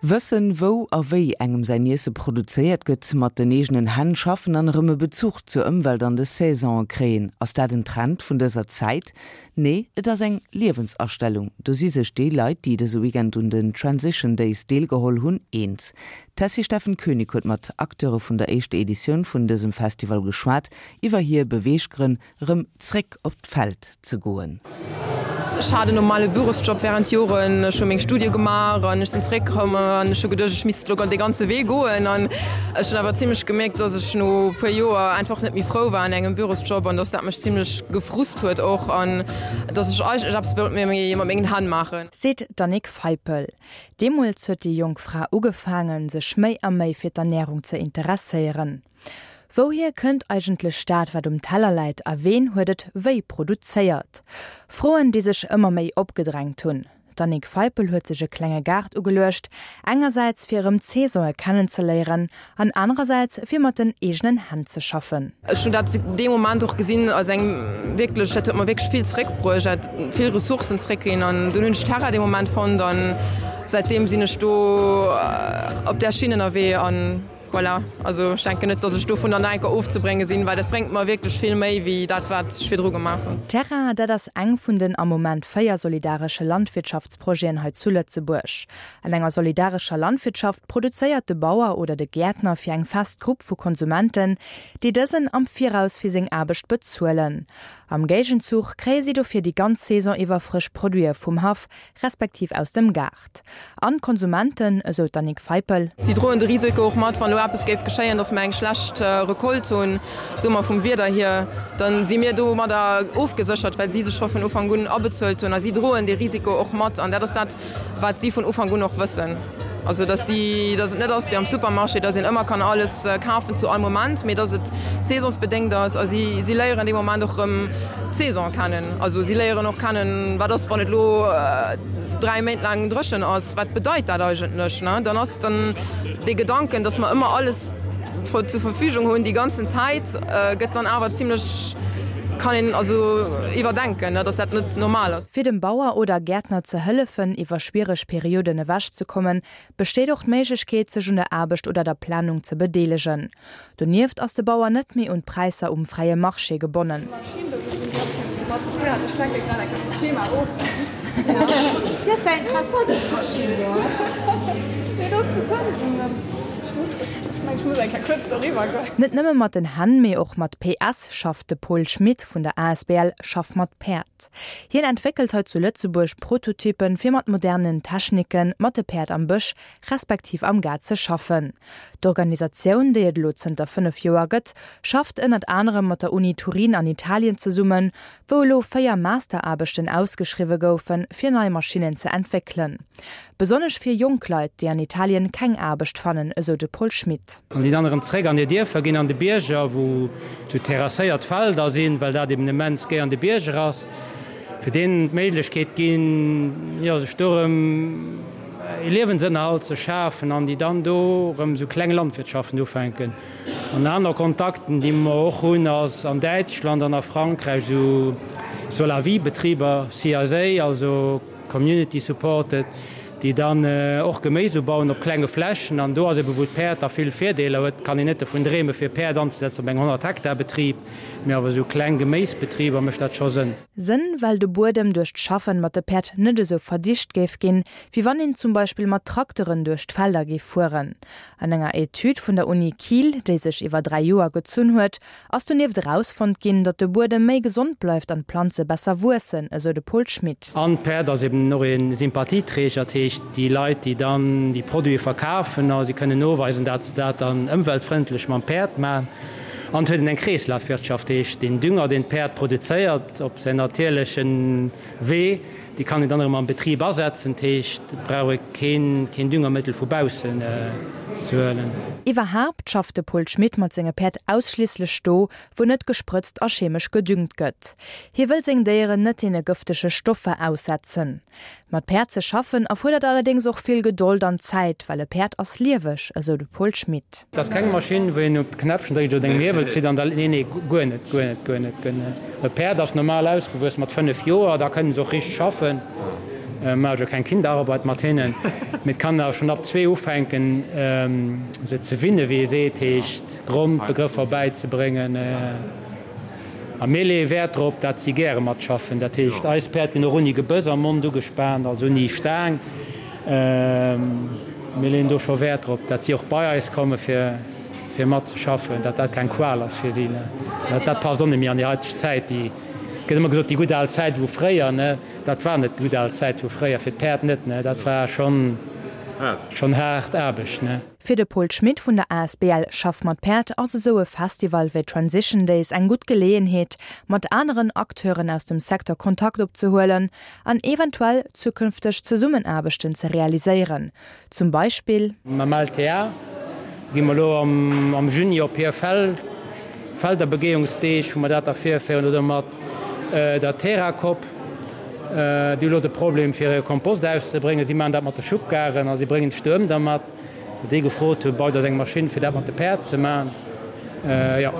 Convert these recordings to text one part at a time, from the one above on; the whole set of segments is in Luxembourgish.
Wëssen, wou a wéi engem säin Iesse produzéiert gëtt, mat den eegenen Hänn schaffen an erëm e Bezuch zur Ëmwelt an de Saisonen kréien, ass dat en Trend vun dëser Zäit? Nee, et ass eng Liewensastellung. Do si sech déi Leit, déi dëse Weekend un den Transition Days deelgeholl hunn, eens. D'Tessy Steffen Koenig huet mat Acteure vun der éischter Editioun vun dësem Festival geschwat, iwwer hir Beweeggrënn, Rëm zréck op d'Feld ze goen. Ech hat en normale Bürosjob während Joren, ech hu meng Studie gemaach an ech sinn zeréckkomm an ech hu geduecht, ech misst elo dee ganze Wee goen. An ech hunn awer zimlech gemierkt, dass ech no e puer Joer einfach net méi frou war an engem Bürosjob an dass dat mech zimlech gefrust huet och an dass ech eigentlech eppes wollt méi mat mengen Hänn maachen. Seet d'Annick Feipel. Deemools huet déi jonk Fra ugefaangen, sech méi a méi fir d'Ernärung ze interesséieren. Wouhier kënnt eigentlech dat, wat um Teller läit a ween huet et wéi produzéiert? Froen, déi sech ëmmer méi opgedrängt hunn. D'Annick Feipel huet sech e klenge Gaart ugeluecht, engersäits fir erëm d'Saisonë kennenzeléieren an anerersäits fir mat den eegenen Hänn ze schaffen. Ech hunn dat dee Moment och gesinn als eng wierklech, dat huet mer wierklech vill zeréckbruecht, dat vill Ressourcen zeréckginn an dunn hunn ech Terra dee Moment fonnt an säitdeem sinn ech do op där Schinn ënnerwee an. Voilà, also ech denken net, dass ech dovunner nach eng Kéier ofzebrénge sinn, well dat bréngt mer wierklech vill méi wéi dat, wat ech virdru gemaach hunn. Terra, dat ass eng vun den am Moment 4 solidaresche Landwirtschaftsprojeten hei zu Lëtzebuerg. An enger solidarescher Landwirtschaft produzéiert de Bauer oder de Gäertner fir eng fest Grupp vu Konsumenten, déi dësen am Viraus fir seng Aarbecht bezuelen. Am Géigenzuch kréie si dofir déi ganz Saison iwwer frësch Produite vum Haff, respektiv aus dem Gaart. An d'Konsumenten, esou d'Annick Feipel. Si droen de Risiko och mat, wann elo eppes géif geschéien, datt mer eng schlecht Recolte hunn, soe mer vum Wieder hier, da si mir domadder ofgeséchert, well si sech scho vun Ufank un abezuelt hunn. A si droen dee Risiko och mat. An dat ass dat, wat si vun Ufank un och wëssen. Also datt si, datt et net ass wéi am Supermarché, datt een ëmmer kann alles kafen zu all Moment, mee datt et saisonsbedéngt ass. A si, si léieren dee Moment och erëm d'Saison kennen. Also si léieren och kennen, wat ass, wann et elo 3 Méint laang dréchen ass, wat bedeit dat eigentlech? Ne, dann ass dann dee Gedanken, datt mer ëmmer alles zur Verfügung hunn déi ganzen Zäit, gëtt dann awer zimlech, kann een also iwwerdenken, ne, datt dat net normal ass. Fir dem Bauer oder Gäertner ze hëllefen, iwwer schwiereg Perioden ewechzekommen, besteet och d'Méiglechkeet, sech un der Aarbecht oder der Planung ze bedeelegen. Donieft ass de Bauer net méi un d'Präisser um fräie Marché gebonnen. Net nëmme mat den Hänn, mee och mat PS schafft de Paul Schmit vun der asbl Schaff mat Päerd. Hien entwéckelt hei zu Lëtzebuerg Prototypen, fir mat modernen Techniken mat de Päerd am Bësch respektiv am Gaart ze schaffen. D'Organisatioun, déi et elo zënter 5 Joer gëtt, schafft ënnert anerem mat der Uni Turin an Italien zesummen, wou elo 4 Masteraarbechten ausgeschriwwe goufen, fir nei Maschinnen ze entwéckelen. Besonnesch fir jonk Leit, déi an Italien keng Aarbecht fannen, esou de Paul Schmit. An déi dann erëm zréck an hir Dierfer ginn, an de Bierger, wou sou terrasséiert Felder sinn, well dat eben immens géi an de Bierger ass, fir deenen d'Méiglechkeet ginn, jo, sech do erëm ee Liewensënnerhalt ze schafen an déi dann do erëm esou kleng Landwirtschaften ufänken. An aner Kontakten, déi mer och hunn, ass an Däitschland an a Frankräich esou Solawi-Betriber, CSA, also Community Supported, déi dann och Geméis ubauen op klenge Flächen. An do ass ebe wou d'Päerd da vill Virdeeler huet, kann een net dovun dreeme fir Päerd anzesetzen op engem 100 Hektar Betrib, mee awer esou kleng Geméisbetriber mécht dat scho Sënn. Sënn, well de Buedem duerch d'Schaffen mat de Päerd net esou verdicht géif ginn, wéi wann een zum Beispill mat Trakteren duerch d'Felder géif fueren. An enger Etüd vun der Uni Kiel, déi sech iwwer 3 Joer gezunn huet, ass donieft erausfonnt ginn, datt de Buedem méi gesond bleift an d'Planze besser wuessen, esou de Paul Schmit. An d'Päerd ass eben och ee Sympathieträger, dat heescht déi Leit, déi dann déi Produite verkafen, a si kënnen noweisen, dat se dat dann ëmweltfrëndlech mam Päerd maachen. An et huet een eng Kreeslafwirtschaft, heescht deen Dünger, deen d'Päerd produzéiert op säin natierleche Wee, dee kann een dann erëm am Betrib asetzen. Dat heescht, et brauch ee keen keen Düngermëttel vu baussen ze huelen. Iwwerhaapt schafft de Paul Schmit mat senge Päerd ausschliisslech do, wou net gesprëtzt a chemesch gedüngt gëtt. Hie wëll seng Déieren net deene gëftege Stoffer aussetzen. Mat Päerd ze schaffen erfuerdert allerdéngs och vill Gedold an Zäit, well e Päerd ass lieweg, esou de Paul Schmit. Et ass keng Maschinn, wou een op de Knäppchen dréckt oder eng Hiewel zitt an da. Nee, nee, guer net, guer net, guer net, guer net. E Päerd ass normal ausgewuess mat 5 Joer, da kënne se och richteg schaffen. Maache jo keng Kinderarbeit mat hinnen, mee et kann awer schonn ab zwee ufänken, se ze winnen, wéi ee seet, heescht Grondbegrëffer bäizebréngen. A mir leeë Wäert drop, dat si gäre matschaffen. Dat heescht, eis Päerd ginn och ouni Gebëss am Mond ugespaant, also ouni Staang. Mir leeën do scho Wäert drop, dat si och bei eis komme fir fir matzeschaffen, dat dat keng Qual ass fir si. Dat passt och net méi an déi haiteg Zäit. Déi gëtt ëmmer gesot, déi gutt al Zäit vu fréier, ne? Dat war net d'gutt al Zäit vu fréier, fir d'Päerd net, ne? Dat war schonn schonn haart Aarbecht, ne? Fir de Paul Schmit vun der asbl Schaff mat Päerd ass esou e Festival wéi Transition Days eng gutt Geleeënheet, mat aneren Acteuren aus dem Secteur Kontakt opzehuelen an eventuell zukünfteg Zesummenaarbechten ze realiséieren. Zum Beispill. Mam LTA gi mer elo am Juni op hir Felderbegehungsdeeg, wou mer dat da virféieren, oder mat der Terracop. Déi hu elo de Problem fir hire Kompost auszebréngen. Si maachen dat mat de Schubkaren a si bréngen d'Stuerm da mat. Déi gefrot hunn, baut eis eng Maschinn fir dat mat de Päerd ze maachen. Jo,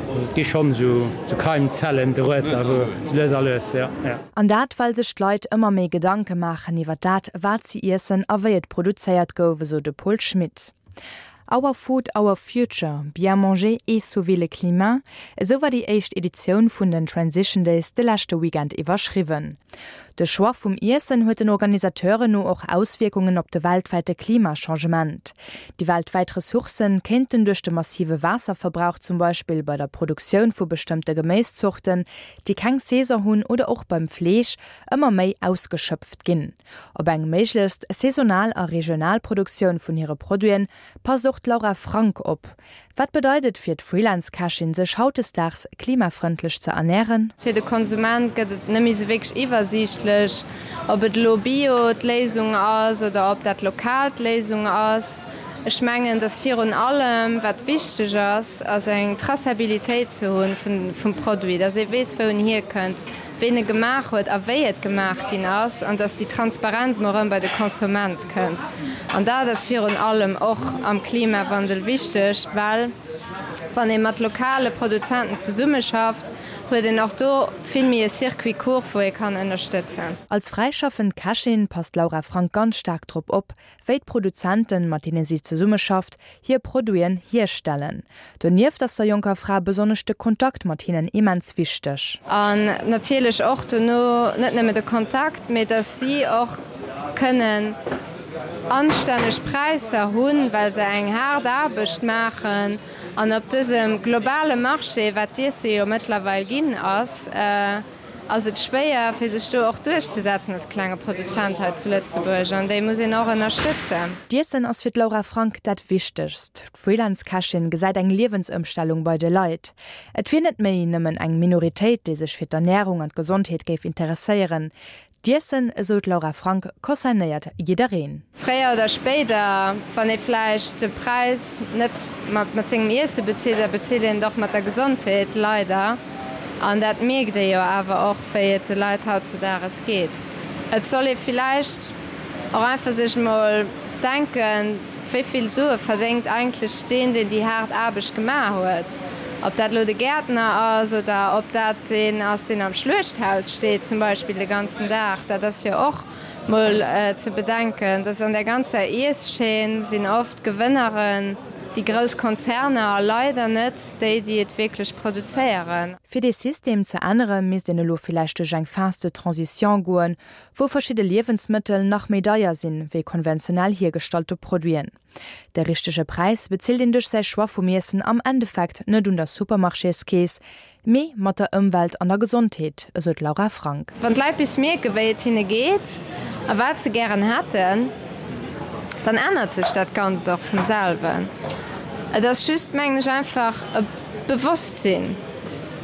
also et gi schonn esou Keimzellen dorueter, wou lues a lues, jo, jo. An dat well sech d'Leit ëmmer méi Gedanke maachen iwwer dat, wat si iessen a wéi et produzéiert gouf, esou de Paul Schmit. Our Food, Our Future, Bien manger et sauver le climat, esou war déi éischt Editioun vun den Transition Days de leschte Weekend iwwerschriwwen. De Choix vum Iessen huet den Organisateuren no och Auswierkungen op de weltwäite Klimachangement. Déi weltwäit Ressourcen kéinten duerch de massive Waasserverbrauch zum Beispill bei der Produktioun vu bestëmmte Geméiszorten, déi keng Saison hunn oder och beim Fleesch, ëmmer méi ausgeschöpft ginn. Op eng méiglechst saisonal a regional Produktioun vun hire Produiten passt och d'Laura Frank op. Wat bedeit et fir d'Freelance-Kächin, sech hautdesdaags klimafrëndlech ze ernären? Fir de Konsument gëtt et net méi sou wierklech iwwersiichtlech, ob et elo Bio d'Léisung ass oder ob dat lokal d'Léisung ass. Ech mengen, dass virun allem, wat wichteg ass, ass eng Traçabilitéit ze hunn vum Produit, dass ee weess, wou en hierkënnt, ween e gemaach huet a wéi et gemaach ginn ass, an dass déi Transparenz mol erëm bei de Konsument kënnt. An dat ass virun allem och am Klimawandel wichteg, well wann ee mat lokale Produzenten zesummeschafft, huet een och do vill méi e Circuit court, wou ee kann ënnerstëtzen. Als fräischaffend Kächin passt d'Laura Frank ganz staark drop op, wéi d'Produzenten, mat deene si zesummeschafft, hir Produiten hierstellen. Donieft ass der jonker Fra besonnesch de Kontakt mat hinnen immens wichteg. An natierlech och dono net nëmme de Kontakt, mee dass si och kënnen anstänneg Präisser hunn, well se eng haart Aarbecht maachen. An op dësem globale Marché, wat d'Iesse jo mëttlerweil ginn ass, ass et schwéier fir sech do och duerchzesetzen als klenge Produzent hei zu Lëtzebuerg an déi muss een och ënnerstëtzen. D'Iessen ass fir d'Laura Frank dat Wichtegst. D'Freelance-Kächin gesäit eng Liewensëmstellung bei de Leit. Et wier net méi nëmmen eng Minoritéit, déi sech fir d'Ernärung an d'Gesondheet géif interesséieren. D'Iessen, esou d'Laura Frank, concernéiert jiddereen. Fréier oder spéider, wann ee vläicht de Präis net mat sengem Iesse bezilt, da bezilt een et och mat der Gesondheet, leider. An dat mierkt ee jo awer och, wéi et de Leit hautzudages geet. Et soll ee villäicht och einfach sech emol denken, Wéi vill Sue verdéngt eigentlech deen, deen déi haart Aarbecht gemaach huet? Ob dat elo de Gäertner ass oder ob dat deen ass, deen am Schluechthaus steet zum Beispill de ganzen Dag, dat ass jo och mol ze bedenken. Dass an där ganzer Ieschaîne sinn oft d'Gewënneren déi grouss Konzerner a leider net déi, déi et wierklech produzéieren. Fir dee System ze ännere misst een elo villäicht duerch eng Phase de transition goen, wou verschidde Liewensmëttel nach méi deier sinn, wéi konventionell hiergestallte Produiten. De richtege Präis bezilt een duerch säi Choix vum Iessen am Endeffekt net un der Supermarchéskeess, mee mat der Ëmwelt an der Gesondheet, esou d'Laura Frank. Wann d'Leit bis mierken, wéi et hinne geet a wat se gären hätten, dann ännert sech dat Ganzt och vum selwen. Et ass just, mengen ech, einfach e Bewosstsinn.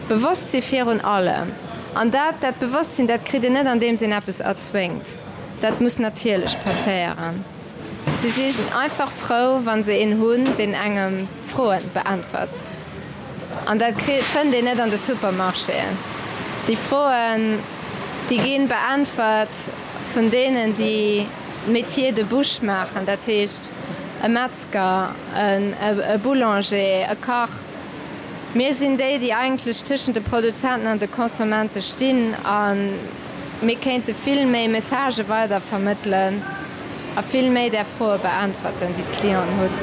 Bewosstsi virun allem. An dat, dat Bewosstsinn, dat kritt een net andeems een eppes erzwéngt. Dat muss natierlech passéieren. Si si einfach frou, wa se een hunn, deen engem Froen beäntwert. An dat kritt, fënnt een net an de Supermarchéen. Déi Froen, déi gi beäntwert vun deenen, déi Métier de bouche maachen, dat heescht e Metzger, e Boulanger, e Kach. Mir sinn déi, déi eigentlech tëschent de Produzenten an de Consommente stinn. A. Mir kéinte vill méi Messagë weider vermëttelen a vill méi där Froe beäntwerten, déi d'Clienten hunn.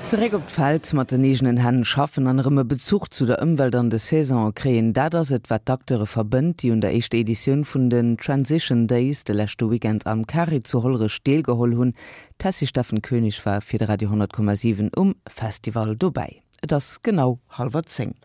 Zeréck op d'Feld, mat den eegenen Hänn schaffen an erëm e Bezuch zu der Ëmwelt an de Saisonen kréien, dat ass et, wat d'Acteure verbënnt, déi un der éischter Editioun vun den Transition Days de leschte Weekend am Carré zu Hollerech deelgeholl hunn. D'Tessy Steffen Koenig war fir de Radio 10,7 um Festival dobäi. Et ass genau hallwer 10.